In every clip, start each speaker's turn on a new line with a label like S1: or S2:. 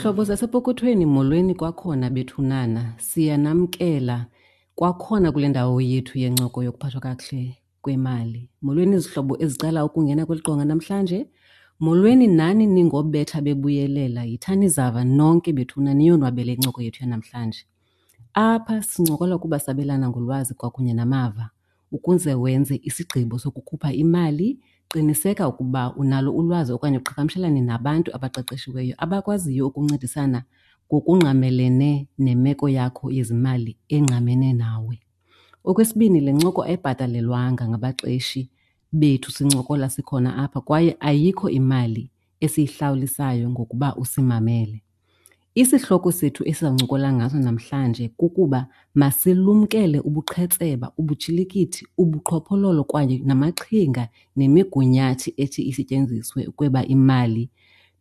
S1: Zihlobo zasepokothweni, molweni kwakhona bethunana. Siyanamkela kwakhona kule ndawo yethu yencoko yokuphathwa kakuhle kwemali. Molweni zihlobo ezicela ukungena kweli qonga namhlanje. Molweni nani ningobetha bebuyelela. Yithani zava nonke bethuna niyonwabele incoko yethu yanamhlanje. Apha sincokola kuba sabelana ngolwazi kwakunye namava. Ukuze wenze isigqibo sokukhupha imali, qiniseka ukuba unalo ulwazi okanye uqhagamshelane nabantu abaqeqeshiweyo abakwaziyo ukuncedisana ngokungqamelene nemeko yakho yezimali engqamene nawe. Okwesibini, le ncoko ayibhatalelwanga ngabaqeshi bethu sincokola sikhona apha kwaye ayikho imali esiyihlawulisayo ngokuba usimamele. Isihloko sethu esizawuncokola ngaso namhlanje kukuba masilumkele ubuqhetseba, ubutshilikithi, ubuqhophololo kwaye namaqhinga nemigunyathi ethi isetyenziswe ukweba imali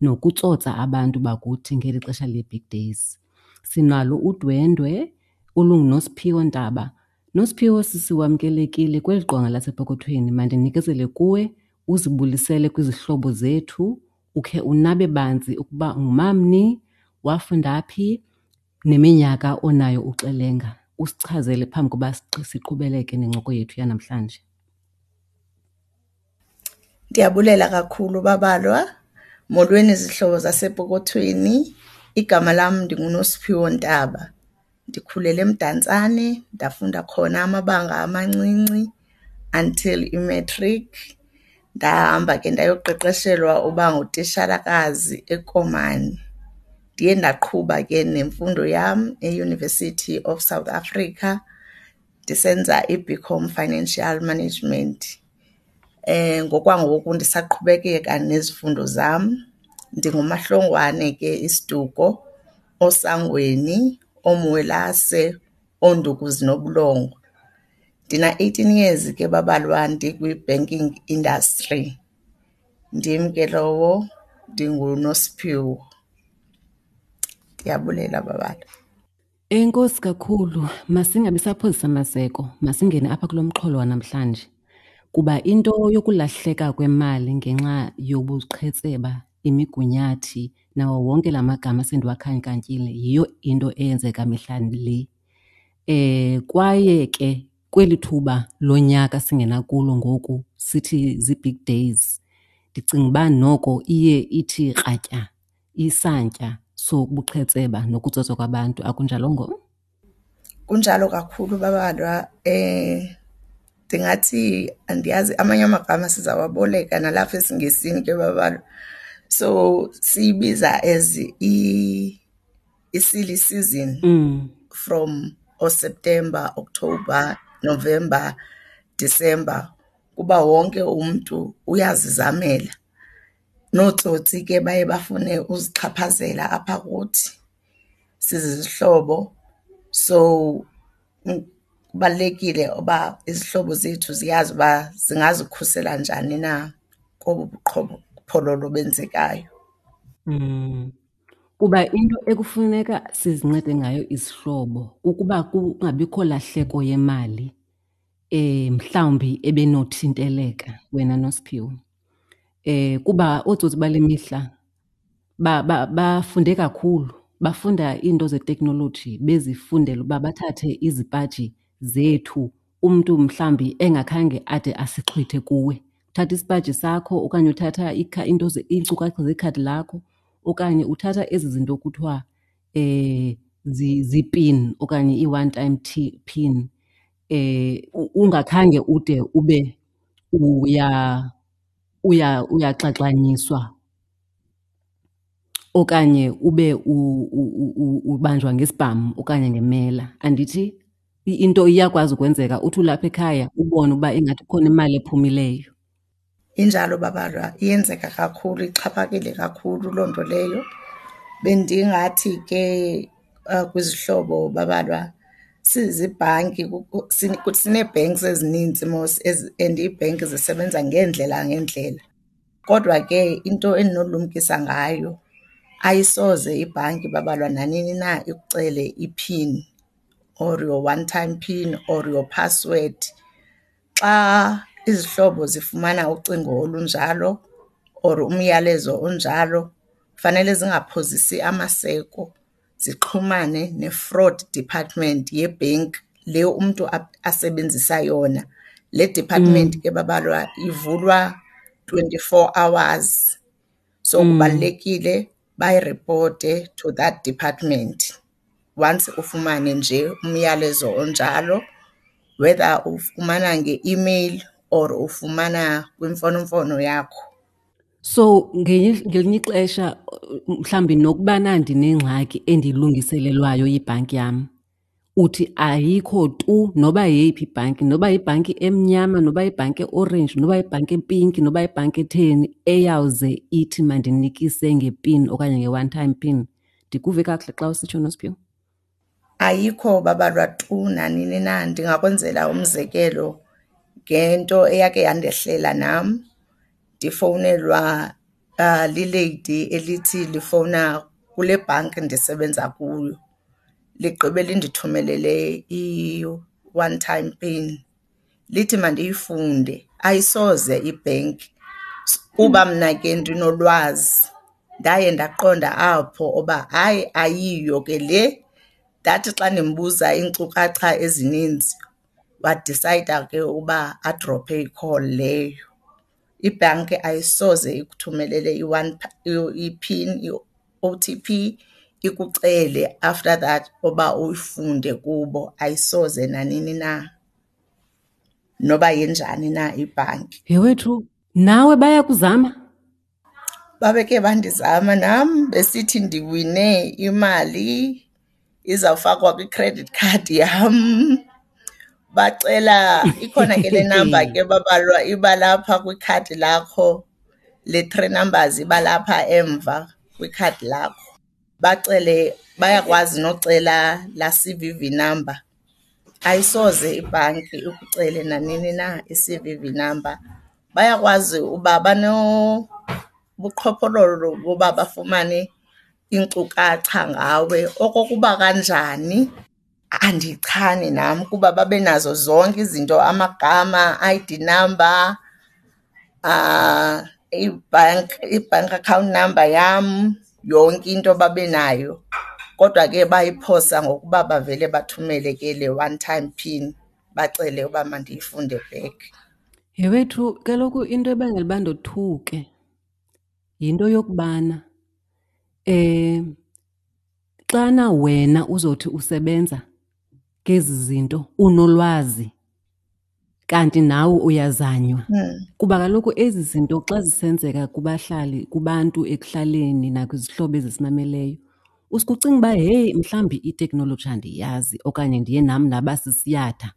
S1: nokutsotsa abantu bakuthi ngeli xesha lee-big days. Sinalo udwendwe olunguNosiphiwo Ntaba. Nosiphiwo, sisi, wamkelekile kweli qonga lasepokothweni. Mandinikezele kuwe uzibulisele kwizihlobo zethu, ukhe unabe banzi ukuba ungumamni, wafunda phi, neminyaka onayo uxelenga. Usichazele phambi koba siqhubeleke nencoko yethu yanamhlanje.
S2: Ndiyabulela kakhulu, Babalwa. Molweni zihlobo zasepokothweni. Igama lam ndinguNosiphiwo Ntaba. Ndikhulele eMdantsane, ndafunda khona amabanga amancinci until i-matric. Ndahamba ke ndayoqeqeshelwa uba ngutishalakazi eKomani. Ndiye ndaqhuba ke nemfundo yam eUniversity of South Africa ndisenza iBCom Financial Management. Ngokwangoku ndisaqhubekeka nezifundo zam. NdinguMaHlongwane ke isiduko, oSangweni, oMwelase, onduku zinobulongwe. Ndina-eighteen years ke Babalwa ndikwi-banking industry. Ndim ke lowo, ndinguNosiphiwo. Ndiyabulela, Babalwa.
S1: Enkosi kakhulu. Masingabi saphozisa maseko, masingene apha kulo mxholo wanamhlanje. Kuba into yokulahleka kwemali ngenxa yobuqhetseba, imigunyathi nawo wonke la magama sendiwakhankanyile yiyo into eyenzeka mihla le. Kwaye ke kweli thuba lonyaka singena kulo ngoku sithi zii-big days, ndicinga uba noko iye ithi kratya isantya sobuqhetseba nokutsotswa kwabantu, akunjalongo?
S2: Kunjalo kakhulu, Babalwa. Ndingathi andiyazi, amanye amagama sizawaboleka nalapha esiNgesini ke, Babalwa. So siyibiza as i-silly season from ooSeptember, October, November, December, kuba wonke umntu uyazizamela. Nootsotsi ke baye bafune uzixhaphazela apha kuthi sizizihlobo. So kubalulekile uba izihlobo zethu ziyazi uba zingazikhusela njani na kobu buqhophololo benzekayo.
S1: Kuba into ekufuneka sizincede ngayo izihlobo kukuba kungabikho lahleko yemali mhlawumbi ebenothinteleka wena Nosiphiwo. Kuba ootsotsi bale mihla bafunde kakhulu, bafunda iinto zeteknoloji bezifundela uba bathathe izipaji zethu umntu mhlawumbi engakhange ade asixhwithe kuwe. Uthatha isipaji sakho okanye uthatha iinto iinkcukacha zekhadi lakho okanye uthatha ezi zinto kuthiwa zii-pin okanye ii-one time pin, ungakhange ude ube uyaxaxanyiswa okanye ube ubanjwa ngesibhamu okanye ngemela. Andithi into iyakwazi ukwenzeka uthi ulapha ekhaya ubone uba ingathi kukhona imali ephumileyo.
S2: Injalo, Babalwa, iyenzeka kakhulu, ixhaphakile kakhulu loo nto leyo. Bendingathi ke kwizihlobo, Babalwa, sizibhanki sinee-banks ezinintsi mos and iibhenki zisebenza ngeendlela ngeendlela. Kodwa ke into endinolumkisa ngayo, ayisoze ibhanki, Babalwa, nanini na ikucele iphini or your one time pin or your password. Xa izihlobo zifumana ucingo olunjalo or umyalezo onjalo, Fanele zingaphozisi amaseko zixhumane ne-fraud department yebhenki le umntu asebenzisa yona. Le department ke babalwa ivulwa 24 hours, so kubalulekile bayiripote to that department once ufumane nje umyalezo onjalo, whether uwufumana nge-email or uwufumana kwimfonomfono yakho.
S1: So ngelinye ixesha mhlawumbi nokubana ndinengxaki endiyilungiselelwayo yibhanki yam, uthi ayikho tu noba yeyiphi ibhanki, noba yibhanki emnyama, noba yibhanki eorenji, noba yibhanki epinki, noba yibhanki etheni, eyawuze ithi mandinikise ngepin okanye nge-one time pin. Ndikuve kakuhle xa usitsho, Nosiphiwo?
S2: Ayikho babalwa tu nanini na. Ndingakwenzela umzekelo ngento eyake yandehlela nam. Ndifowunelwa lileyidi elithi lifowuna kule bhanki ndisebenza kuyo, ligqibe lindithumelele i-one time pin lithi mandiyifunde. Ayisoze ibhenki. Kuba mna ke ndinolwazi ndaye ndaqonda apho uba hayi ayiyo ke le. Ndathi xa ndimbuza iinkcukacha ezininzi wadisayida ke uba adrophe i-call leyo. Ibhanki ayisoze ikuthumelele i-one i-pin, i-O_T_P ikucele after that uba uyifunde kubo, ayisoze nanini na, noba yenjani na ibhanki.
S1: Yhe wethu, nawe bayakuzama?
S2: Babeke bandizama nam besithi ndiwine imali izawufakwa kwi-credit card yam. Bacela, ikhona ke le number ke babalwa iba lapha kwikhadi lakho, le three numbers iba lapha emva kwikhadi lakho. Bacele, bayakwazi nocela laa C_V_V number. Ayisoze ibhanki ikucele nanini na i-C_V_V number. Bayakwazi uba banobuqhophololo boba bafumane iinkcukacha ngawe. Okokuba kanjani andichani nam kuba babe nazo zonke izinto, amagama, I_D number, i-bank account number yam, yonke into babe nayo. Kodwa ke bayiphosa ngokuba bavele bathumele ke le one time pin bacele uba mandiyifunde back.
S1: Yhe wethu, kaloku into ebangela uba ndothuke yinto yokubana xana wena uzothi usebenza ngezi zinto unolwazi kanti nawe uyazanywa. Kuba kaloku ezi zinto xa zisenzeka kubahlali, kubantu ekuhlaleni nakwizihlobo ezisimameleyo, usuke ucinga uba heyi mhlawumbi iteknoloji andiyazi okanye ndiye nam ndaba sisiyatha,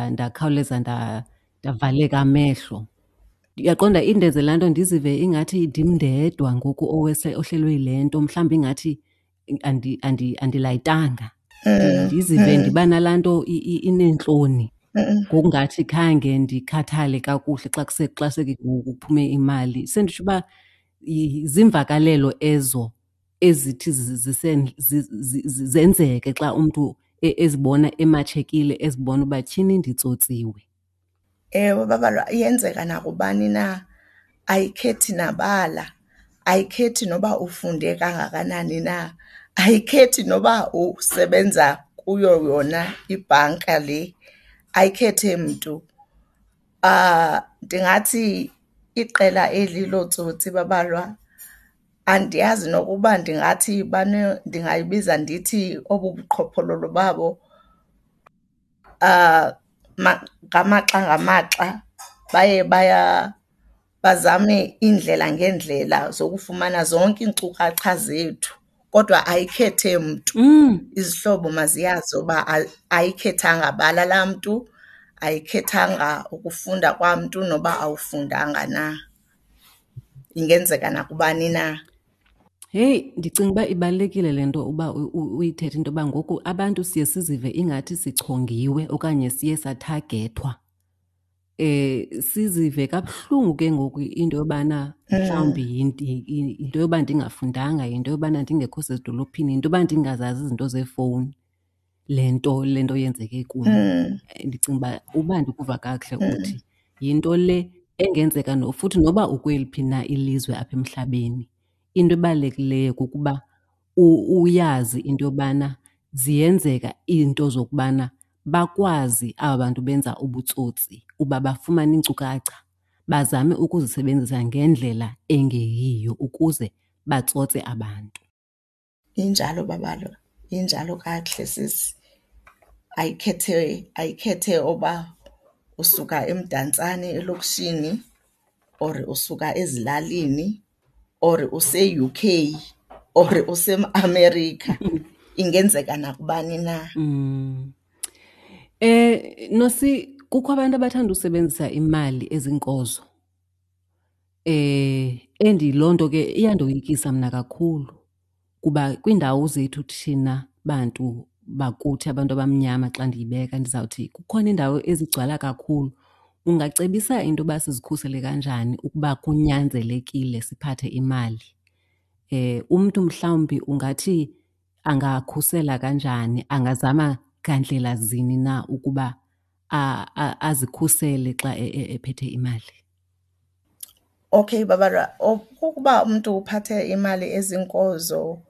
S1: ndakhawuleza ndavaleka amehlo. Uyaqonda, indenze laa nto ndizive ingathi ndim ndedwa ngoku ohlelwe yile nto, mhlawumbi ingathi andilayitanga. Ndizive ndiba nalaa nto ineentloni ngokungathi khange ndikhathale kakuhle xa xa kuphume imali. Senditsho uba ziimvakalelo ezo ezithi zenzeke xa umntu ezibona ematshekile, ezibona uba tyhini nditsotsiwe.
S2: Ewe, babalwa, iyenzeka nakubani na, ayikhethi nabala, ayikhethi noba ufunde kangakanani na, ayikhethi noba usebenza kuyo yona ibhanka le, ayikhethi mntu. Ndingathi iqela eli lootsotsi babalwa, andiyazi nokuba ndingathi ndingayibiza ndithi obu buqhophololo babo ngamaxa ngamaxa baye bazame iindlela ngeendlela zokufumana zonke iinkcukacha zethu, kodwa ayikhethe mntu. Izihlobo maziyazi uba ayikhethanga bala laa mntu, ayikhethanga ukufunda kwamntu noba awufundanga na. Ingenzeka nakubani na.
S1: Heyi, ndicinga uba ibalulekile le nto uba uyithethe into yoba ngoku abantu siye sizive ingathi sichongiwe okanye siye sathagethwa. Sizive kabuhlungu ke ngoku into yobana mhlawumbi yinto yoba ndingafundanga, yinto yobana ndingekho sezidolophini, yinto yoba ndingazazi izinto zeefowuni le nto le nto yenzeke kum. Ndicinga uba uba ndikuva kakuhle uthi yinto le engenzeka futhi noba ukweliphi na ilizwe apha emhlabeni. Into ebalulekileyo kukuba uyazi into yobana ziyenzeka iinto zokubana bakwazi aba bantu benza ubutsotsi uba bafumane iinkcukacha bazame ukuzisebenzisa ngendlela engeyiyo ukuze batsotse abantu.
S2: Injalo Babalwa, injalo kakuhle sisi. Ayikhethe, ayikhethe oba usuka eMdantsane elokishini or usuka ezilalini or use-UK or useAmerica, ingenzeka nakubani na.
S1: Nosi, kukho abantu abathanda usebenzisa imali ezinkozo. And loo nto ke iyandoyikisa mna kakhulu kuba kwiindawo zethu thina bantu bakuthi, abantu abamnyama xa ndiyibeka ndizawuthi kukhona iindawo ezigcwala kakhulu. Ungacebisa into yoba sizikhusele kanjani ukuba kunyanzelekile siphathe imali? Umntu mhlawumbi ungathi angakhusela kanjani, angazama ngandlela zini na ukuba azikhusele xa ephethe imali?
S2: Okay Babalwa, ukuba umntu uphathe imali ezinkozo,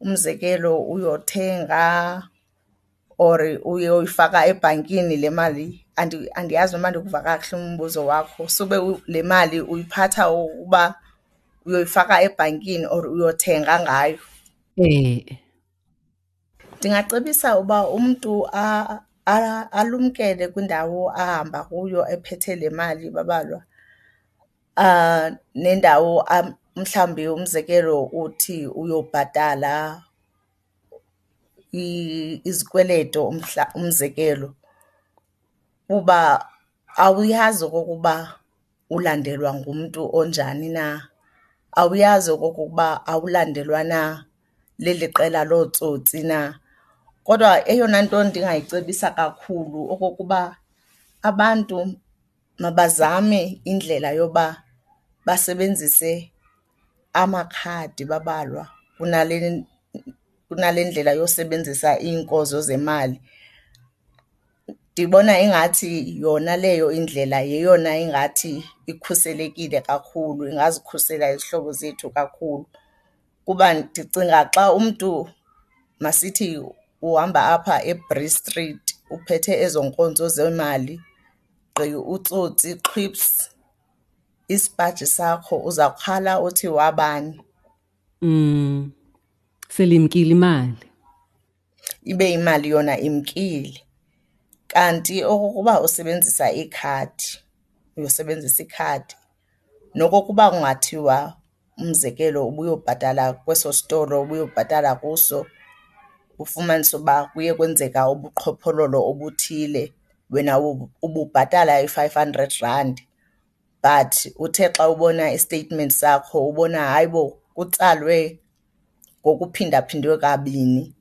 S2: umzekelo uyothenga or uyoyifaka ebhankini le mali, andiyazi noba ndikuva kakuhle umbuzo wakho. Sube le mali uyiphatha ukuba uyoyifaka ebhankini or uyothenga ngayo? Ndingacebisa uba umntu alumkele kwindawo ahamba kuyo ephethe le mali Babalwa. Nendawo mhlawumbi umzekelo uthi uyobhatala izikweleto umzekelo, kuba awuyazi okokuba ulandelwa ngumntu onjani na, awuyazi okokuba awulandelwa na leli qela lootsotsi na. Kodwa eyona nto ndingayicebisa kakhulu okokuba abantu mabazame indlela yoba basebenzise amakhadi Babalwa kunale, kunale ndlela yosebenzisa iinkozo zemali. Ndibona ingathi yona leyo indlela yeyona ingathi ikhuselekile kakhulu, ingazikhusela izihlobo zethu kakhulu. Kuba ndicinga xa umntu, masithi uhamba apha eBree Street uphethe ezo nkonzo zemali, gqi utsotsi xhwiphs isipaji sakho, uzawukhala uthi wabani?
S1: Selimkile imali.
S2: Ibe imali yona imkile. Kanti okokuba usebenzisa ikhadi, uyosebenzisa ikhadi, nokokuba kungathiwa umzekelo ubuyobhatala kweso sitolo ubuyobhatala kuso, ufumanise uba kuye kwenzeka ubuqhophololo obuthile, wena ububhatala i-500 rand but uthe xa ubona i-statement sakho ubona hayibo kutsalwe ngokuphindaphindwe kabini.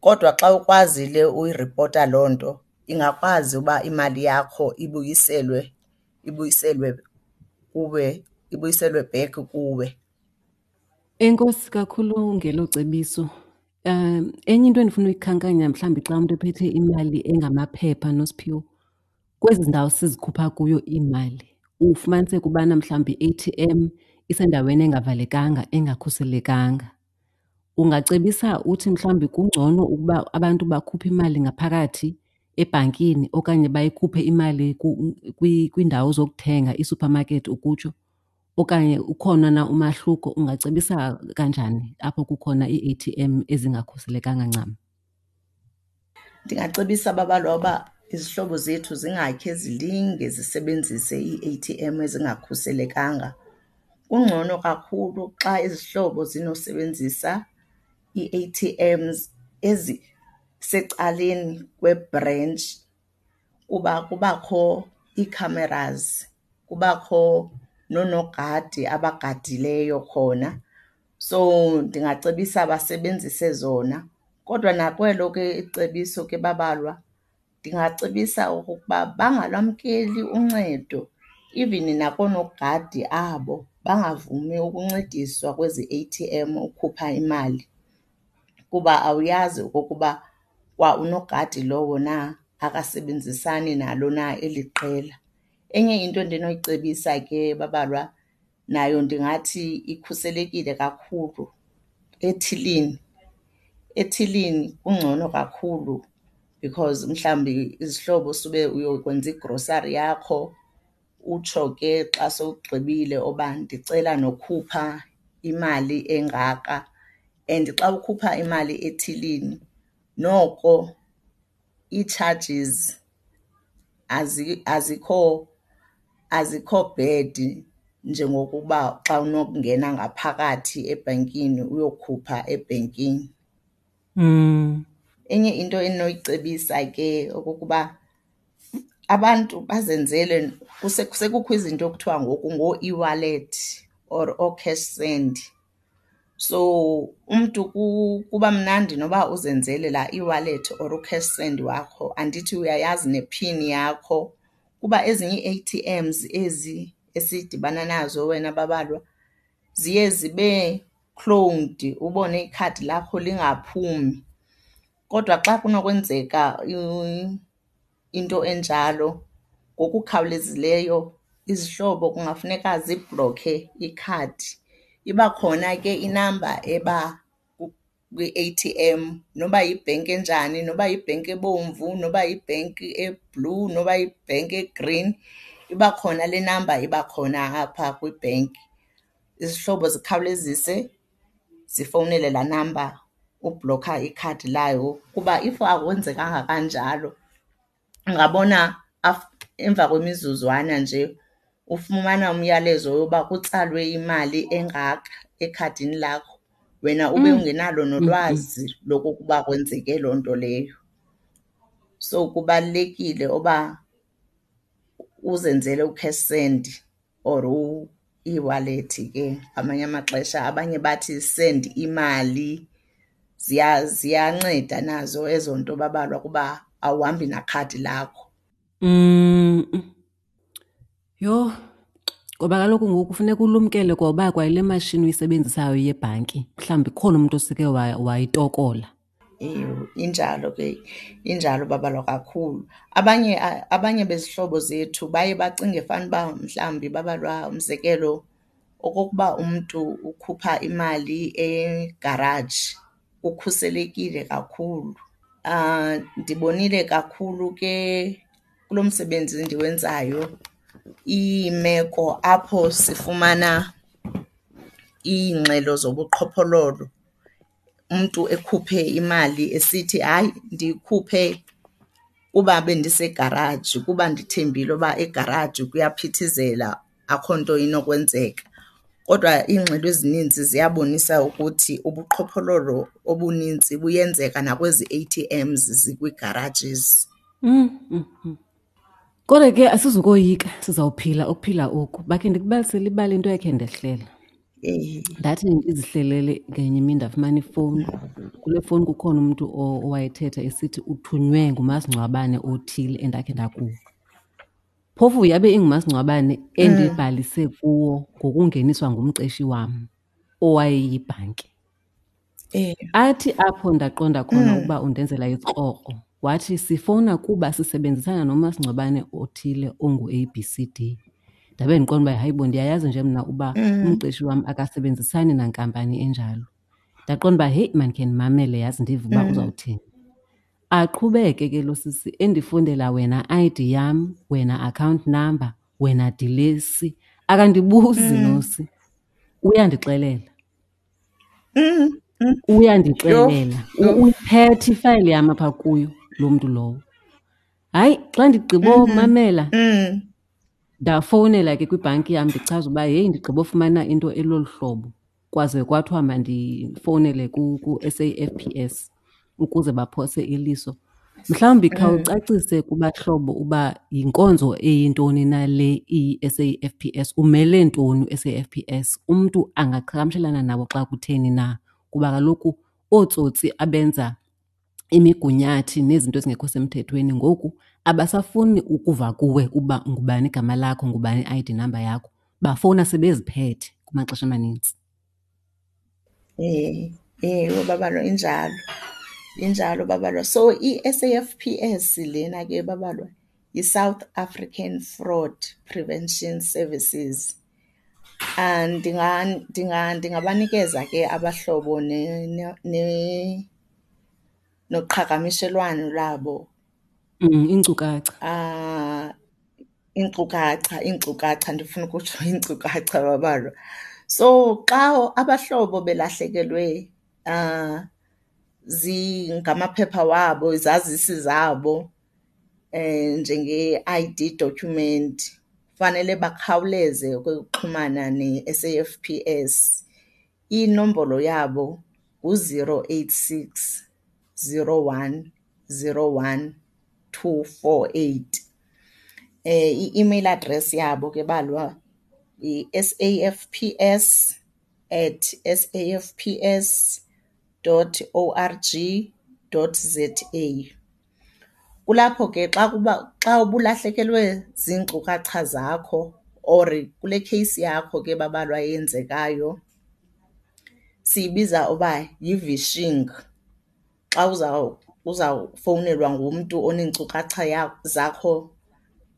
S2: Kodwa xa ukwazile uyiripota loo nto, ingakwazi uba imali yakho ibuyiselwe, ibuyiselwe kuwe, ibuyiselwe back kuwe.
S1: Enkosi kakhulu ngelo cebiso. Enye into endifuna uyikhankanya mhlawumbi xa umntu ephethe imali engamaphepha, Nosiphiwo, kwezi ndawo sizikhupha kuyo iimali ufumaniseke ubana mhlawumbi i-A_T_M isendaweni engavalekanga, engakhuselekanga. Ungacebisa uthi mhlawumbi kungcono ukuba abantu bakhuphe imali ngaphakathi ebhankini okanye bayikhuphe imali kwiindawo zokuthenga, iisuphamakethi ukutsho, okanye ukhona na umahluko? Ungacebisa kanjani apho kukhona ii-A_T_M ezingakhuselekanga ncam?
S2: Ndingacebisa Babalwa uba izihlobo zethu zingakhe zilinge zisebenzise ii-A_T_M ezingakhuselekanga. Kungcono kakhulu xa izihlobo zinosebenzisa ii-A_T_Ms ezisecaleni kwebhrentshi kuba kubakho ii-cameras, kubakho noonogadi abagadileyo khona. So ndingacebisa basebenzise zona. Kodwa nakwelo ke icebiso ke Babalwa, ndingacebisa okokuba bangalwamkeli uncedo even nakoonogadi abo, bangavumi ukuncediswa kwezi A_T_M ukhupha imali kuba awuyazi okokuba kwa unogadi lowo na akasebenzisani nalo na eli qela. Enye into endinoyicebisa ke Babalwa, Nayo ndingathi ikhuselekile kakhulu ethilini. Ethilini kungcono kakhulu because mhlawumbi izihlobo sube uyokwenza igrosari yakho utsho ke xa sowugqibile uba ndicela nokhupha imali engaka. And xa ukhupha imali ethilini noko ii-charges azikho, azikho bad njengokuba xa unokungena ngaphakathi ebhenkini uyokhupha ebhenkini. Enye into endinoyicebisa ke okokuba abantu bazenzele, sekukho izinto ekuthiwa ngoku ngooeWallet or ooCash Send. So umntu kuba mnandi noba uzenzele laa eWallet or uCash Send wakho, andithi uyayazi nephini yakho. Kuba ezinye ii-ATMs ezi esidibana nazo wena Babalwa ziye zibe cloned, ubone ikhadi lakho lingaphumi. Kodwa xa kunokwenzeka into enjalo ngokukhawulezileyo izihlobo kungafuneka zibhlokhe ikhadi. Iba khona ke inamba eba kwi-ATM noba yibhenki enjani, noba yibhenki ebomvu, noba yibhenki e-blue, noba yibhenki e-green, iba khona le namba iba khona apha kwibhenki. Izihlobo zikhawulezise zifowunele laa namba ubhlokha ikhadi layo kuba if akwenzekanga kanjalo ungabona emva kwemizuzwana nje ufumana umyalezo woba kutsalwe imali engaka ekhadini lakho, wena ube ungenalo nolwazi lokokuba kwenzeke loo nto leyo. So kubalulekile uba uzenzele uCash Send or u-eWallet ke ngamanye amaxesha. Abanye bathi send imali. Ziyanceda nazo ezo nto babalwa kuba awuhambi nakhadi lakho.
S1: Yho, ngoba kaloku ngoku funeka ulumkele kwa uba kwayile mashini uyisebenzisayo yebhanki mhlawumbi kukhona umntu oseke wayitokola.
S2: Ewe, injalo ke, injalo babalwa kakhulu. Abanye abanye bezihlobo zethu baye bacinge fanuba mhlawumbi babalwa, umzekelo, okokuba umntu ukhupha imali egaraji kukhuselekile kakhulu. Ndibonile kakhulu ke kulo msebenzi ndiwenzayo iimeko apho sifumana iingxelo zobuqhophololo, umntu ekhuphe imali esithi, hayi, ndiyikhuphe kuba bendisegaraji, kuba ndithembile uba egaraji kuyaphithizela akho nto inokwenzeka. Kodwa iingxelo ezininzi ziyabonisa ukuthi ubuqhophololo obunintsi buyenzeka nakwezi A_T_Ms zikwii-garages.
S1: Kodwa ke asizukoyika, sizawuphila ukuphila oku. Bakhe ndikubalisele ibali into ekhe ndehlela. Ndathi ndizihlelele ngenye imini ndafumana ifowuni. Kule fowuni kukhona umntu owayethetha esithi uthunywe ngumasingcwabane othile endakhe ndakuwo. Phofu yabe ingumasingcwabane endibhalise kuwo ngokungeniswa ngumqeshi wam owayeyibhanki. Athi apho ndaqonda khona ukuba undenzela isikrokro, wathi sifowuna kuba sisebenzisana nomasingcwabane othile ongu-A B C D. Ndabe ndiqonda uba hayibo ndiyayazi nje mna uba umqeshi wam akasebenzisani nankampani enjalo. Ndaqonda uba heyi mandikhe ndimamele yazi ndive uba uzawuthini. Aqhubeke ke lo sisi endifundela wena ID yam, wena account number, wena dilesi. Akandibuzi nosi, uyandixelela. Uyandixelela. Uyiphethe ifayile yam apha kuyo loo mntu lowo. Hayi, xa ndigqibomamela, ndafowunela ke kwibhanki yam ndichaza uba heyi ndigqibofumana into elolu hlobo. Kwaze kwathiwa mandifowunele ku-S_A_F_P_S ukuze baphose iliso. Mhlawumbi khawucacise kubahlobo uba yinkonzo eyintoni na le iyi-S_A_F_P_S, umele ntoni u-S_A_F_P_S, umntu angaqhagamshelana nabo xa kutheni na? Kuba kaloku ootsotsi abenza imigunyathi nezinto ezingekho semthethweni ngoku abasafuni ukuva kuwe uba ngubani igama lakho, ngubani i-I_D number yakho. Bafowuna sebeziphethe kumaxesha amanintsi.
S2: Ewe, babalwa, injalo. Injalo babalwa. So i-S_A_F_P_S lena ke babalwa yiSouth African Fraud Prevention Services. Ndingabanikeza ke abahlobo noqhagamishelwano lwabo.
S1: Iinkcukacha.
S2: Iinkcukacha, iinkcukacha, ndifuna ukutsho iinkcukacha babalwa. So xa abahlobo belahlekelwe ngamaphepha wabo, izazisi zabo njenge-ID document, fanele bakhawuleze ukuxhumana neS_A_F_P_S. Inombolo yabo ngu-zero eight six, zero one, zero one, two four eight. I-email address yabo ke balwa yi-S A F P S at S A F P S dot O R G dot Z A. Kulapho ke xa kuba, xa ubulahlekelwe ziinkcukacha zakho or kule kheyisi yakho ke babalwa eyenzekayo siyibiza uba yi-vishing. Xa uzawufowunelwa ngumntu oneenkcukacha zakho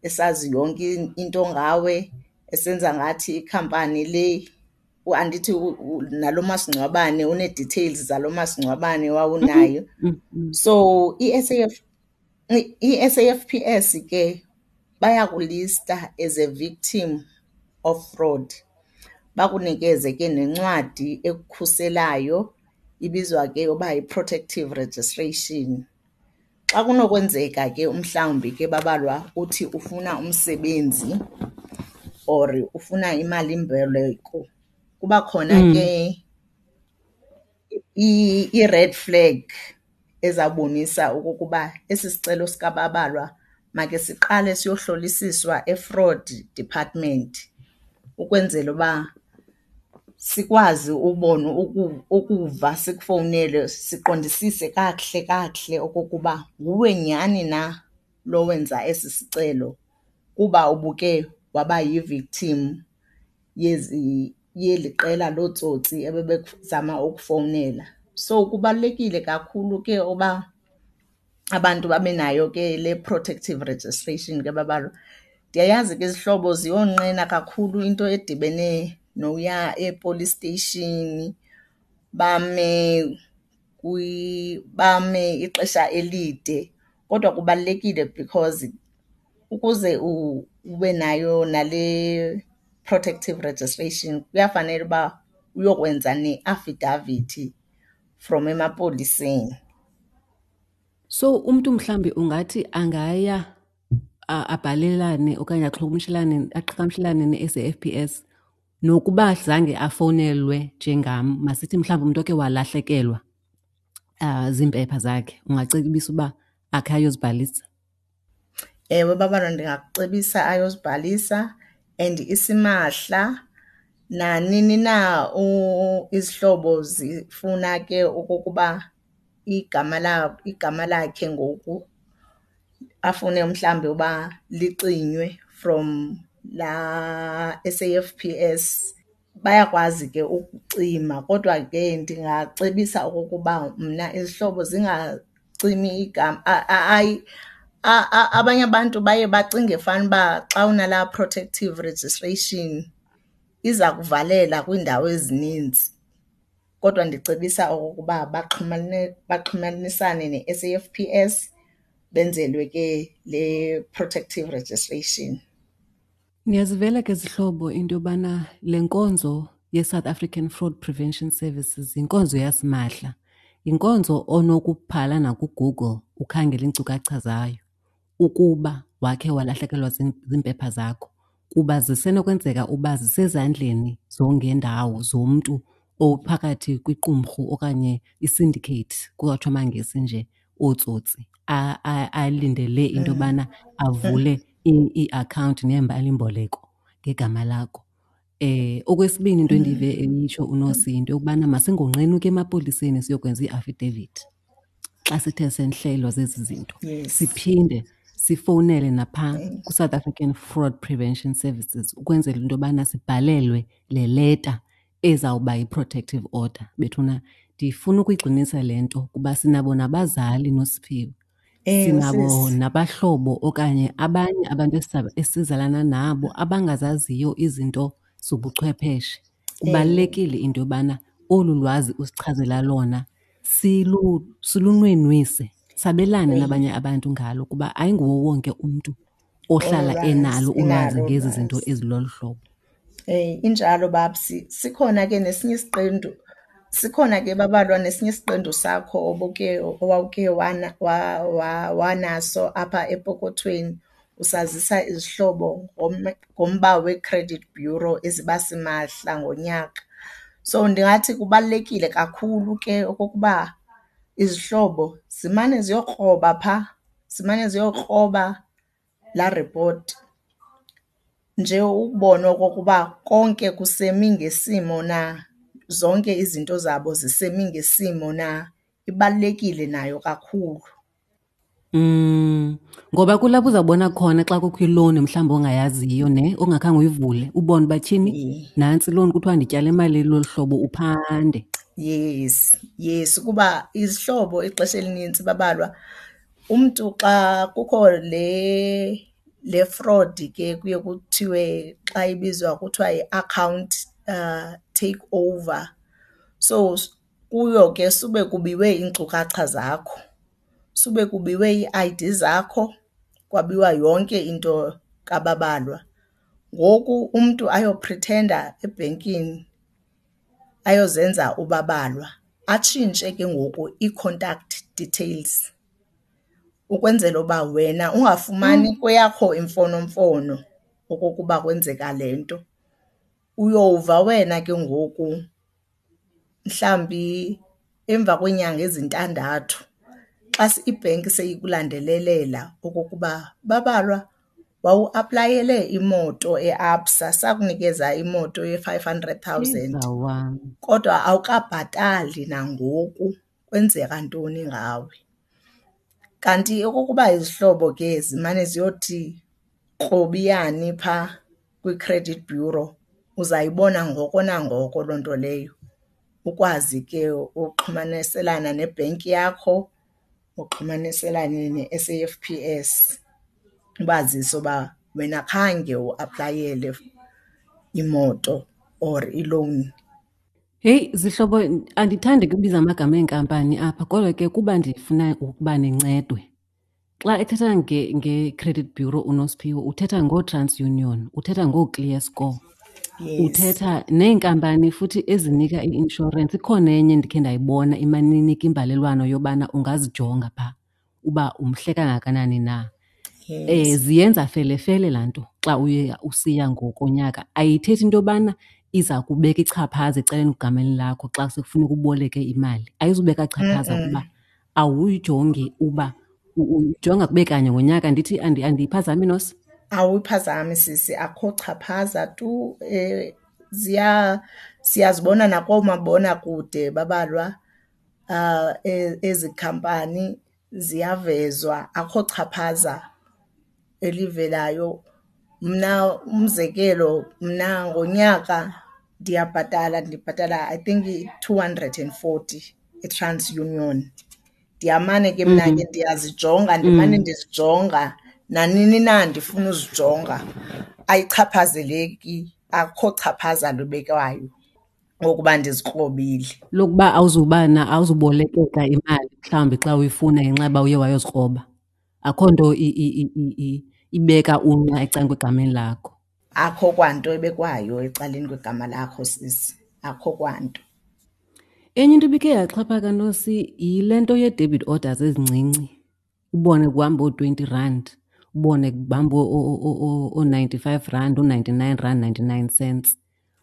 S2: esazi yonke into ngawe, esenza ngathi ikhampani le, andithi nalo masingcwabane unee-details zalo masingcwabane wawunayo. So i-S_A_F_P_S ke bayakulista as a victim of fraud, bakunikeze ke nencwadi ekukhuselayo, ibizwa ke uba yi-protective registration. Xa kunokwenzeka ke umhlawumbi ke babalwa uthi ufuna umsebenzi or ufuna imalimboleko, kuba khona ke i-red flag ezawubonisa okokuba esi sicelo sikaBabalwa make siqale siyohlolisiswa e-fraud department ukwenzela uba sikwazi ubona ukuva sikufowunele siqondisise kakuhle kakuhle okokuba nguwe nyhani na lo wenza esi sicelo kuba ubuke waba yi-victim yezi, yeli qela lootsotsi ebebekuzama ukufowunela. So kubalulekile kakhulu ke uba abantu babe nayo ke le protective registration ke babalwa. Ndiyayazi ke izihlobo ziyonqena kakhulu into edibene noya e-police station bame bame ixesha elide, kodwa kubalulekile because ukuze ube nayo nale protective registration kuyafanele uba uyokwenza neafidavithi from emapoliseni.
S1: So umntu mhlawumbi ungathi angaya abhalelane okanye axhokumshelane, aqhagamshelane ne-S_A_F_P_S nokuba zange afowunelwe njengam, masithi mhlawumbi umntu oke walahlekelwa ziimpepha zakhe, ungacebisa uba akhe ayozibhalisa?
S2: Ewe, babalwa, ndingakucebisa ayozibhalisa and isimahla. Nanini na izihlobo zifuna ke okokuba igama igama lakhe ngoku afune mhlawumbi uba licinywe from laa S_A_F_P_S, bayakwazi ke ukucima. Kodwa ke ndingacebisa okokuba mna izihlobo zingacimi igama. Hayi, abanye abantu baye bacinge fanuba xa unalaa protective registration iza kuvalela kwiindawo ezininzi. Kodwa ndicebisa okokuba baxhumanisane ne-S_A_F_P_S benzelwe ke le protective registration.
S1: Niyazivela ke zihlobo into yobana le nkonzo yeSouth African Fraud Prevention Services yinkonzo yasimahla. Yinkonzo onokubhala nakuGoogle ukhangele iinkcukacha zayo ukuba wakhe walahlekelwa ziimpepha zakho, kuba zisenokwenzeka uba zisezandleni zongendawo zomntu ophakathi kwiqumrhu okanye i-syndicate, kuyatsho amaNgesi nje, ootsotsi alindele into yobana avule iiakhawunti neemalimboleko ngegama lakho. Okwesibini into endive eyitsho uNosi yinto yokubana masingonqeni ukuya emapoliseni siyokwenza ii-affidavit xa sithe senhlelwa zezi zinto. Siphinde sifowunele naphaa kwiSouth African Fraud Prevention Services ukwenzela into yobana sibhalelwe le leta ezawuba yi-protective order. Bethuna ndifuna ukuyigxinisa le nto kuba sinabo nabazali Nosiphiwe. Sinabo nabahlobo okanye abanye abantu esizalana nabo abangazaziyo izinto zobuchwepheshe. Kubalulekile into yobana olu lwazi usichazela lona silunwenwise, sabelane nabanye abantu ngalo kuba ayinguwo wonke umntu ohlala enalo ulwazi ngezi zinto ezilolu hlobo.
S2: Injalo Babsi. Sikhona ke nesinye isiqendu, sikhona ke Babalwa nesinye isiqendu sakho obuke owawuke wanaso apha epokothweni usazisa izihlobo ngomba wee-credit bureau eziba simahla ngonyaka. So ndingathi kubalulekile kakhulu ke okokuba izihlobo zimane ziyokroba phaa, zimane ziyokroba laa ripoti nje ukubona okokuba konke kusemi ngesimo na, zonke izinto zabo zisemi ngesimo na. Ibalulekile nayo kakhulu.
S1: Ngoba kulapho uzawubona khona xa kukho ilowuni mhlawumbi ongayaziyo ne ongakhange uyivule, ubone uba tyhini nantsi ilowuni kuthiwa ndityale imali elolu hlobo, uphande.
S2: Yes, yes, kuba izihlobo ixesha elinintsi babalwa umntu xa kukho le fraud ke kuye kuthiwe xa ibizwa kuthiwa yi-account take over. So kuyo ke sube kubiwe iinkcukacha zakho, sube kubiwe ii-ID zakho, kwabiwa yonke into kaBabalwa. Ngoku umntu ayophrithenda ebhenkini ayozenza uBabalwa, atshintshe ke ngoku ii-contact details ukwenzela uba wena ungafumani kweyakho imfonomfono okokuba kwenzeka le nto. Uyova wena ke ngoku mhlawumbi emva kweenyanga ezintandathu xa ibhenki seyikulandelelela okokuba, Babalwa, wawuaplayele imoto eABSA sakunikeza imoto ye-five hundred thousand kodwa awukabhatali nangoku, kwenzeka ntoni ngawe? Kanti okokuba izihlobo ke zimane ziyothi krobiyani phaa kwi-credit bureau, uzayibona ngoko nangoko loo nto leyo, ukwazi ke uxhumaniselana nebhenki yakho, uxhumaniselane ne-S_A_F_P_S ubazise uba wena khange uaplayele imoto or ilowuni.
S1: Heyi zihlobo, andithandi kubiza amagama eenkampani apha kodwa ke kuba ndifuna ukuba nincedwe. Xa ethetha nge-credit bureau uNosiphiwe uthetha ngooTransunion, uthetha ngooClear Score. Uthetha neenkampani futhi ezinika i-inshorensi. Ikhona enye endikhe ndayibona imane inika imbalelwano yobana ungazijonga phaa uba umhle kangakanani na. Ziyenza felefele laa nto xa uye usiya ngokonyaka. Ayithethi into yobana iza kubeka ichaphaza ecaleni egameni lakho xa sekufuneka uboleke imali. Ayizubeka chaphaza kuba awuyijongi uba ujonga kube kanye ngonyaka. Ndithi andiyiphazami, Nosi?
S2: Awuyiphazami sisi, akho chaphaza tu. Siyazibona nakoomabonakude babalwa ezi khampani ziyavezwa, akho chaphaza elivelayo. Mna umzekelo, mna ngonyaka ndiyabhatala, ndibhatala I think i-240 eTransunion. Ndiyamane ke mna ke ndiyazijonga, ndimane ndizijonga nanini na ndifuna uzijonga. Ayichaphazeleki, akukho chaphaza lubekwayo ngokuba ndizikrobile.
S1: Lokuba awuzubolekeka imali mhlawumbi xa uyifuna ngenxa yoba uye wayozikroba. Akho nto ibeka unqa ecaleni kwegameni lakho.
S2: Akho kwanto ebekwayo ecaleni kwegama lakho sisi, akho kwanto.
S1: Enye into ibikhe yaxhaphaka Nosi yile nto yee-debit orders ezincinci. Ubone kuhamba oo-twenty rand, ubone kuhamba oo-ninety-five rand, oo-ninety-nine rand ninety-nine cents.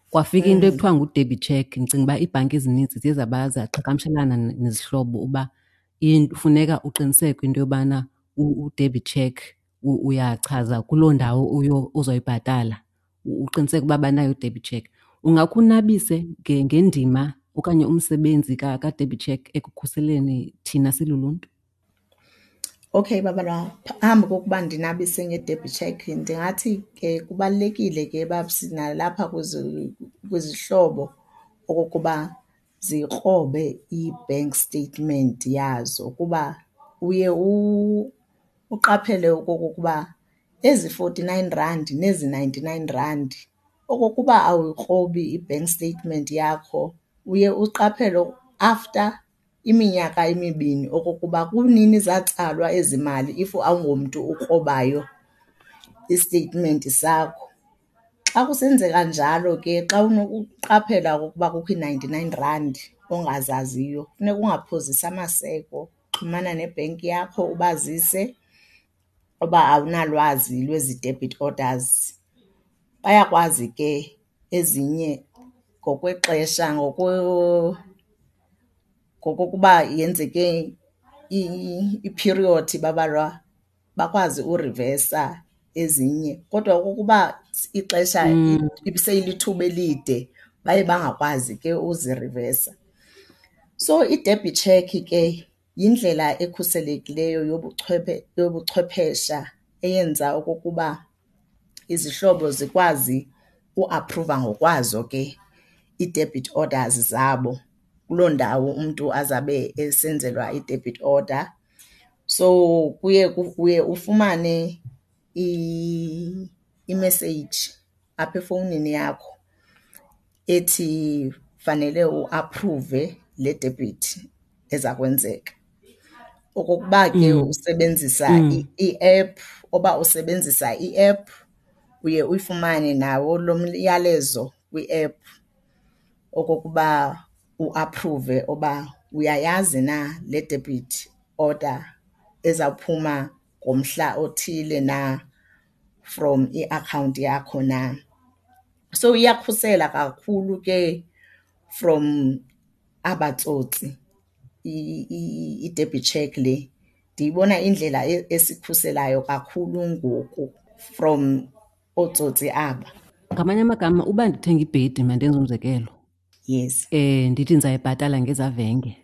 S1: Kwafika into ekuthiwa ngu-debit check. Ndicinga uba iibhanki ezinintsi ziye zaqhagamshelana nezihlobo uba funeka uqiniseke into yobana u-debit check uyachaza kuloo ndawo uzoyibhatala, uqiniseke uba banayo i-debit check. Ungakhe unabise ngendima okanye umsebenzi ka-debit check ekukhuseleni thina siluluntu?
S2: Okay Babalwa, phambi kokuba ndinabise nge-debit check ndingathi ke kubalulekile ke babs nalapha kwizihlobo okokuba zikrobe i-bank statement yazo kuba uye uqaphele okokuba ezi forty-nine rand nezi ninety-nine rand Okokuba awuyikrobi i-bank statement yakho uye uqaphele after iminyaka emibini okokuba kunini zatsalwa ezi mali if awungomntu ukrobayo istetimenti sakho. Xa kusenzeka njalo ke xa unokuqaphela okokuba kukho ii-ninety-nine rand ongazaziyo funeka ungaphozisi amaseko, xhumana nebhenki yakho ubazise uba awunalwazi lwezi debit orders. Bayakwazi ke ezinye ngokwexesha ngokokuba yenzeke iphiriyodi babalwa, bakwazi urivesa ezinye. Kodwa okokuba ixesha ibiseyilithuba elide baye bangakwazi ke uzirivesa. So i-debit check ke yindlela ekhuselekileyo yobuchwephesha eyenza okokuba izihlobo zikwazi uaphruva ngokwazo ke ii-debit orders zabo kuloo ndawo umntu azabe esenzelwa i-debit order. So kuye uye ufumane imeseyiji apha efowunini yakho ethi fanele uaphruve le debit eza kwenzeka. Okokuba ke usebenzisa i-app, uba usebenzisa i-app uye uyifumane nawo lo myalezo kwi-app okokuba uaphruve uba uyayazi na le debit order ezawuphuma ngomhla othile na from iakhawunti yakho na. So iyakhusela kakhulu ke from aba tsotsi i-debit check le. Ndiyibona indlela esikhuselayo kakhulu ngoku from ootsotsi aba.
S1: Ngamanye amagama uba ndithenga ibhedi, mandenze umzekelo.
S2: Yes.
S1: Ndithi ndizayibhatala ngezavenge.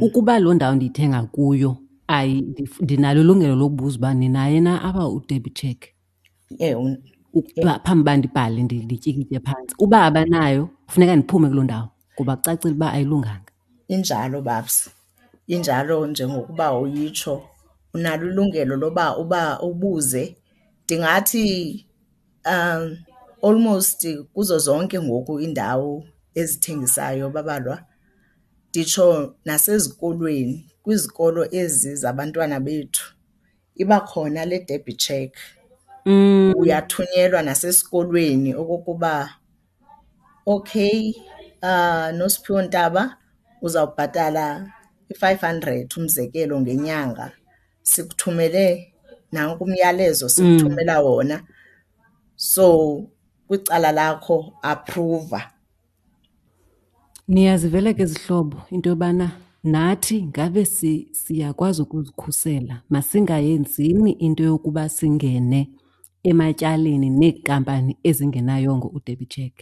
S1: Ukuba loo ndawo ndiyithenga kuyo ndinalo ilungelo lokubuza uba ninaye na apha u-debit check.
S2: Ewe.
S1: Ukuba phambi uba ndibhale ndityikitye phantsi. Uba abanayo funeka ndiphume kuloo ndawo ngoba kucacile uba ayilunganga.
S2: Injalo babs, injalo njengokuba uyitsho. Unalo ilungelo loba uba ubuze. Ndingathi almost kuzo zonke ngoku iindawo ezithengisayo babalwa, nditsho nasezikolweni, kwizikolo ezi zabantwana bethu iba khona le debit check. Uyathunyelwa nasesikolweni okokuba okay, Nosiphiwo Ntaba uzawubhatala i-500 umzekelo ngenyanga, sikuthumele nanku umyalezo sikuthumela wona. So kwicala lakho aphruva.
S1: Niyazivela ke zihlobo into yobana nathi ngabe siyakwazi ukuzikhusela. Masingayenzini into yokuba singene ematyaleni neekampani ezingenayongo u-debit check,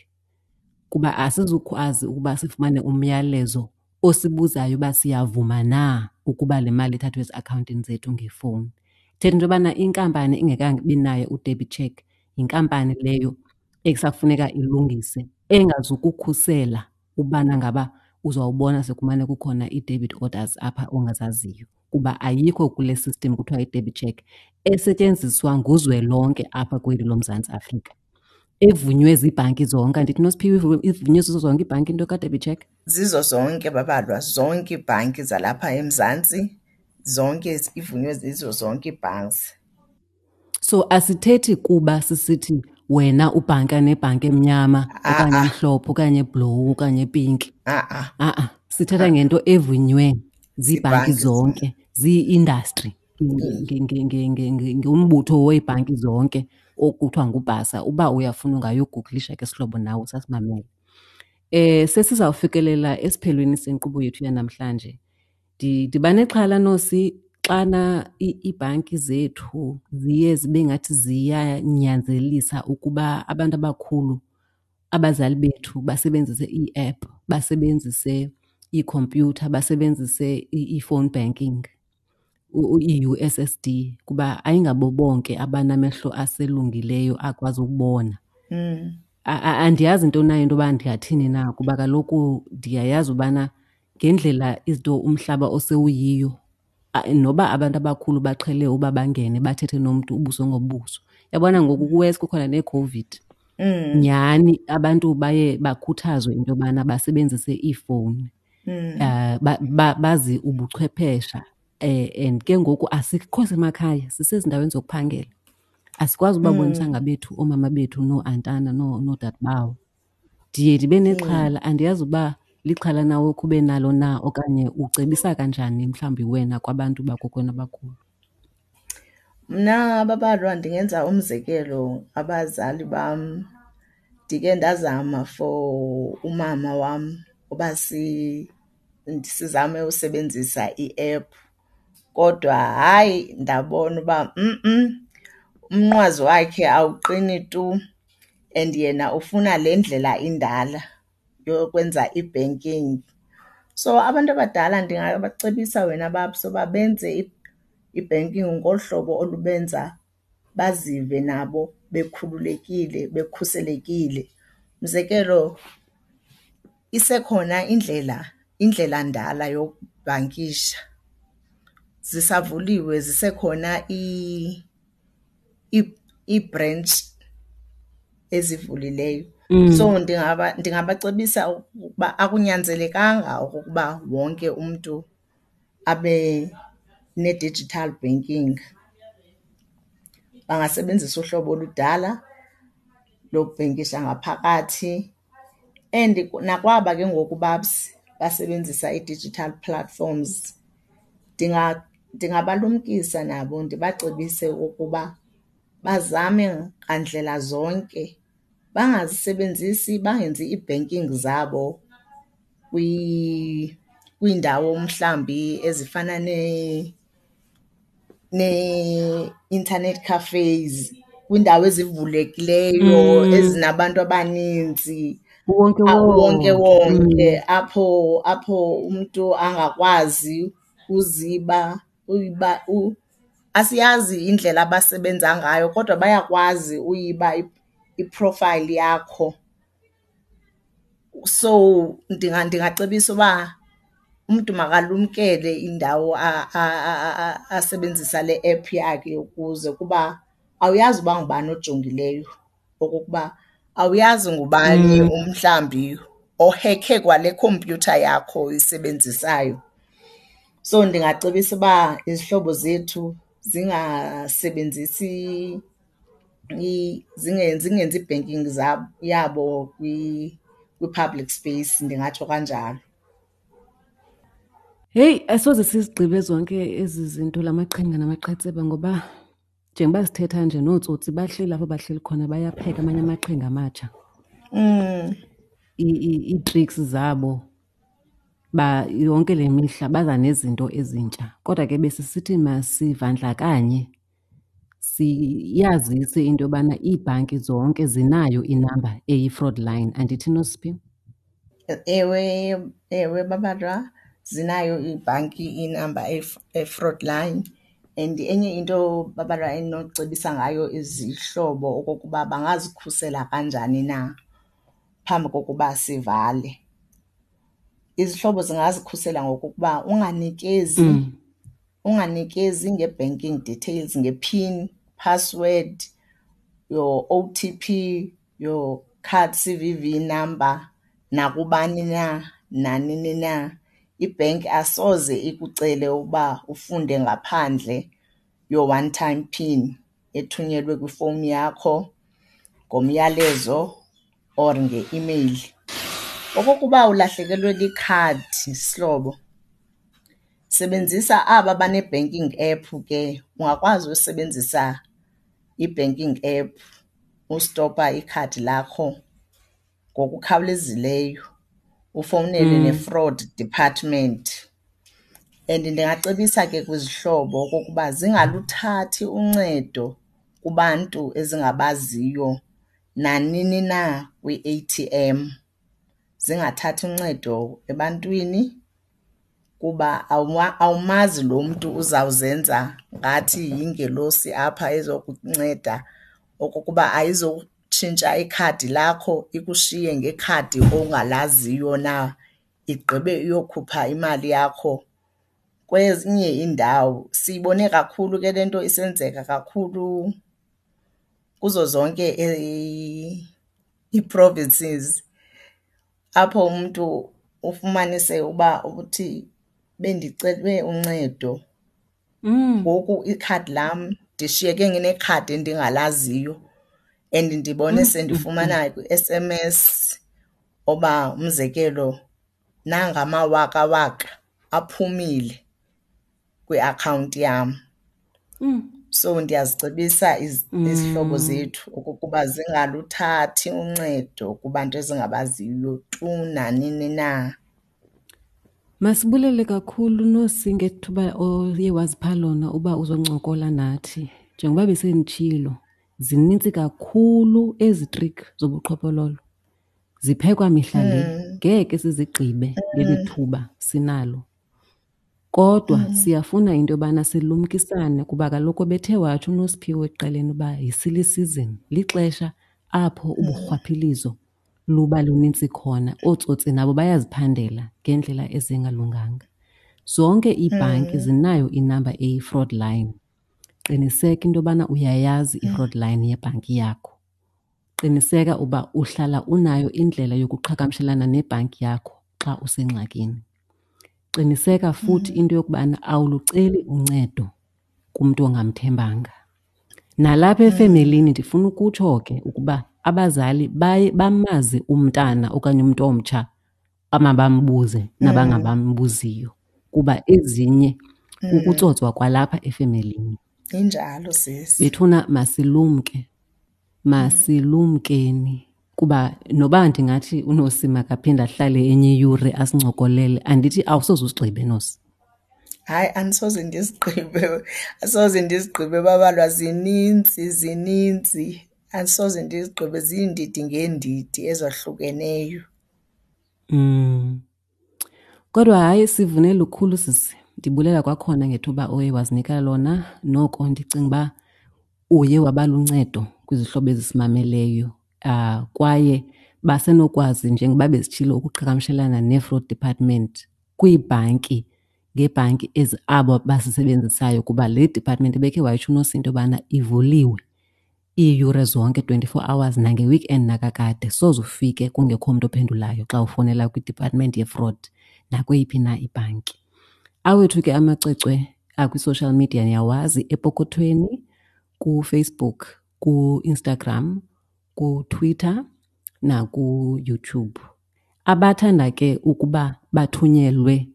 S1: kuba asizukwazi ukuba sifumane umyalezo osibuzayo uba siyavuma na ukuba le mali ithathwe eziakhawuntini zethu ngefowuni. Ithetha into yobana inkampani ingekabi nayo u-debit check yinkampani leyo ekusafuneka ilungise, engazukukhusela ubana ngaba uzawubona sekumane kukhona ii-debit orders apha ongazaziyo, kuba ayikho kule system kuthiwa yi-debit check esetyenziswa nguzwelonke apha kweli loMzantsi Afrika, evunywe ziibhanki zonke. Andithi Nosiphiwe ivunywe zizo zonke iibhanki into ka-debit check?
S2: Zizo zonke babalwa, zonke iibhanki zalapha eMzantsi, zonke ivunywe zizo zonke ii-banks.
S1: So asithethi kuba sisithi wena ubhanka nebhanki emnyama okanye emhlophe okanye eblowu okanye epinki.
S2: A-a.
S1: A-a, sithetha ngento evunywe ziibhanki zonke, zii-industry, ngumbutho weebhanki zonke okuthiwa nguBhasa. Uba uyafuna ungayogugulisha ke sihlobo nawe usasimamele. Sesizawufikelela esiphelweni senkqubo yethu yanamhlanje. Ndiba nexhala Nosi xana iibhanki zethu ziye zibe ngathi ziyanyanzelisa ukuba abantu abakhulu, abazali bethu basebenzise ii-app, basebenzise iikhompyutha, basebenzise i-phone banking, i-U_S_S_D, kuba ayingabo bonke abanamehlo aselungileyo akwazi ukubona. Andiyazi into nayo into yoba ndingathini na, kuba kaloku ndiyayazi ubana ngendlela izinto umhlaba osewuyiyo, noba abantu abakhulu baqhele uba bangene bathethe nomntu ubuso ngobuso. Uyabona ngoku kuwesi kukhona neCOVID. Nyhani abantu baye bakhuthazwe into yobana basebenzise iifowuni, bazi ubuchwephesha. And ke ngoku asikho semakhaya, sisezindaweni zokuphangela. Asikwazi ubabonisa ngabethu oomama bethu nooantana noodadobawo. Ndiye ndibe nexhala, andiyazi uba lixhala na okhe ube nalo na okanye ucebisa kanjani mhlawumbi wena kwabantu bakokwenu abakhulu.
S2: Mna babalwa ndingenza umzekelo abazali bam. Ndike ndazama for umama wam uba sizame usebenzisa i-app kodwa hayi ndabona uba umnqwazi wakhe awuqini tu and yena ufuna le ndlela indala yokwenza i-banking. So abantu abadala ndingabacebisa wena babs uba benze i-banking ngolu hlobo olubenza bazive nabo bekhululekile, bekhuselekile. Umzekelo, isekhona indlela, indlelandala yokubhankisha. Zisavuliwe, zisekhona iibhrentshi ezivulileyo. So ndingabacebisa ukuba akunyanzelekanga okokuba wonke umntu abe ne-digital banking. Bangasebenzisa uhlobo oludala lokubhenkisha ngaphakathi. And nakwaba ke ngoku babs basebenzisa ii-digital platforms ndingabalumkisa nabo ndibacebise ukuba bazame ngandlela zonke bangazisebenzisi, bangenzi ii-banking zabo kwiindawo mhlawumbi ezifana nee-internet cafes, kwiindawo ezivulekileyo ezinabantu abaninzi.
S1: Uwonkewonke.
S2: Uwonkewonke apho apho umntu angakwazi uziba uyiba asiyazi indlela abasebenza ngayo kodwa bayakwazi uyiba i-profile yakho. So ndingacebisa uba umntu makalumkele indawo asebenzisa le app yakhe ukuze kuba awuyazi uba ngubani ojongileyo okokuba awuyazi ngubani umhlawumbi ohekhe kwale khompyutha yakho uyisebenzisayo. So ndingacebisa uba izihlobo zethu zingasebenzisi zingenzi ii-banking yabo kwi-public space, ndingatsho kanjalo.
S1: Heyi, asoze sizigqibe zonke ezi zinto, la maqhinga namaqhetseba, ngoba njengoba sithetha nje nootsotsi bahleli apho bahleli khona bayapheka amanye amaqhinga amatsha. Ii-tricks zabo ba yonke le mihla baza nezinto ezintsha. Kodwa ke besisithi masivandlakanye siyazise into yobana iibhanki zonke zinayo inamba eyi-fraud line, andithi Nosiphi?
S2: Ewe, ewe babalwa, zinayo iibhanki inamba eyi-fraud line. And enye into babalwa endinocebisa ngayo izihlobo okokuba bangazikhusela kanjani na phambi kokuba sivale. Izihlobo zingazikhusela ngokokuba unganikezi, unganikezi nge-banking details, nge-pin, password, your O_T_P, your card C_V_V number nakubani na, nanini na. Ibhenki asoze ikucele ukuba ufunde ngaphandle your one time pin ethunyelwe kwifowuni yakho ngomyalezo or ngeimeyili. Okokuba ulahlekelwe likhadi sihlobo, sebenzisa aba bane-banking app ke, ungakwazi usebenzisa i-banking app ustopa ikhadi lakho ngokukhawulezileyo, ufowunele ne-fraud department. And ndingacebisa ke kwizihlobo okokuba zingaluthathi uncedo kubantu ezingabaziyo nanini na kwi-A_T_M. Zingathathi uncedo ebantwini kuba awumazi lo mntu uzawuzenza ngathi yingelosi apha ezokunceda okokuba ayizotshintsha ikhadi lakho ikushiye ngekhadi ongalaziyo na, igqibe iyokhupha imali yakho kwezinye iindawo. Siyibone kakhulu ke le nto isenzeka kakhulu kuzo zonke . ii-provinces apho umntu ufumanise uba uthi bendicele uncedo ngoku ikhadi lam ndishiyeke nginekhadi endingalaziyo and ndibone sendifumana kwi-S_M_S oba umzekelo nanga amawakawaka aphumile kwiakhawunti yam. So ndiyazicebisa izihlobo zethu okokuba zingaluthathi uncedo kubantu ezingabaziyo tu nanini na.
S1: Masibulele kakhulu Nosi ngethuba oye wazipha lona uba uzoncokola nathi. Njengoba besenditshilo, zinintsi kakhulu ezi trick zobuqhophololo. Ziphekwa mihla le, ngeke sizigqibe ngeli thuba sinalo. Kodwa siyafuna into yobana silumkisane kuba kaloku bethe watsho uNosiphiwe ekuqaleni uba yi-silly season, lixesha apho uburhwaphilizo luba lunintsi khona. Ootsotsi nabo bayaziphandela ngeendlela ezingalunganga. Zonke iibhanki zinayo inamba eyi-fraud line. Qiniseka into yobana uyayazi i-fraud line yebhanki yakho. Qiniseka uba uhlala unayo indlela yokuqhagamshelana nebhanki yakho xa usengxakini. Qiniseka futhi into yokubana awuluceli uncedo kumntu ongamthembanga. Nalapha efemelini ndifuna ukutsho ke ukuba abazali baye bamazi umntana okanye umntu omtsha amabambuze nabangabambuziyo kuba ezinye kukutsotswa kwalapha efemelini.
S2: Injalo sisi.
S1: Bethuna masilumke, masilumkeni kuba noba ndingathi uNosi makaphinde ahlale enye iyure asincokolele, andithi awusoze usigqibe Nosi.
S2: Hayi, andisoze ndizigqibe, asoze ndizigqibe babalwa zininzi, zininzi. Andisoze ndizigqibe, ziindidi ngeendidi ezahlukeneyo.
S1: Kodwa hayi sivune lukhulu sisi. Ndibulela kwakhona ngethuba oye wazinika lona. Noko ndicinga uba uye waba luncedo kwizihlobo ezisimameleyo. Kwaye basenokwazi njengoba besitshilo ukuqhagamshelana nee-fraud department kwiibhanki ngeebhanki ezi abo bazisebenzisayo kuba le department ebekhe wayitsho uNosi into yobana ivuliwe iiyure zonke, 24 hours, nange-weekend nakakade. Soze ufike kungekho mntu ophendulayo xa ufowunela kwi-department ye-fraud nakweyiphi na ibhanki. Awethu ke amacwecwe akwi-social media niyawazi, epokothweni, kuFacebook, kuInstagram, kuTwitter nakuYouTube. Abathanda ke ukuba bathunyelwe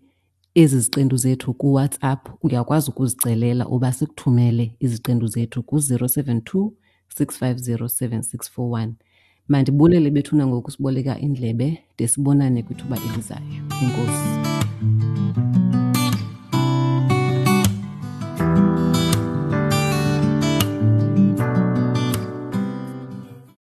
S1: ezi ziqendu zethu kuWhatsApp, uyakwazi ukuzicelela uba sikuthumele iziqendu zethu ku-072 650 7641. Mandibulele bethuna ngokusiboleka indlebe de sibonane kwithuba elizayo. Enkosi.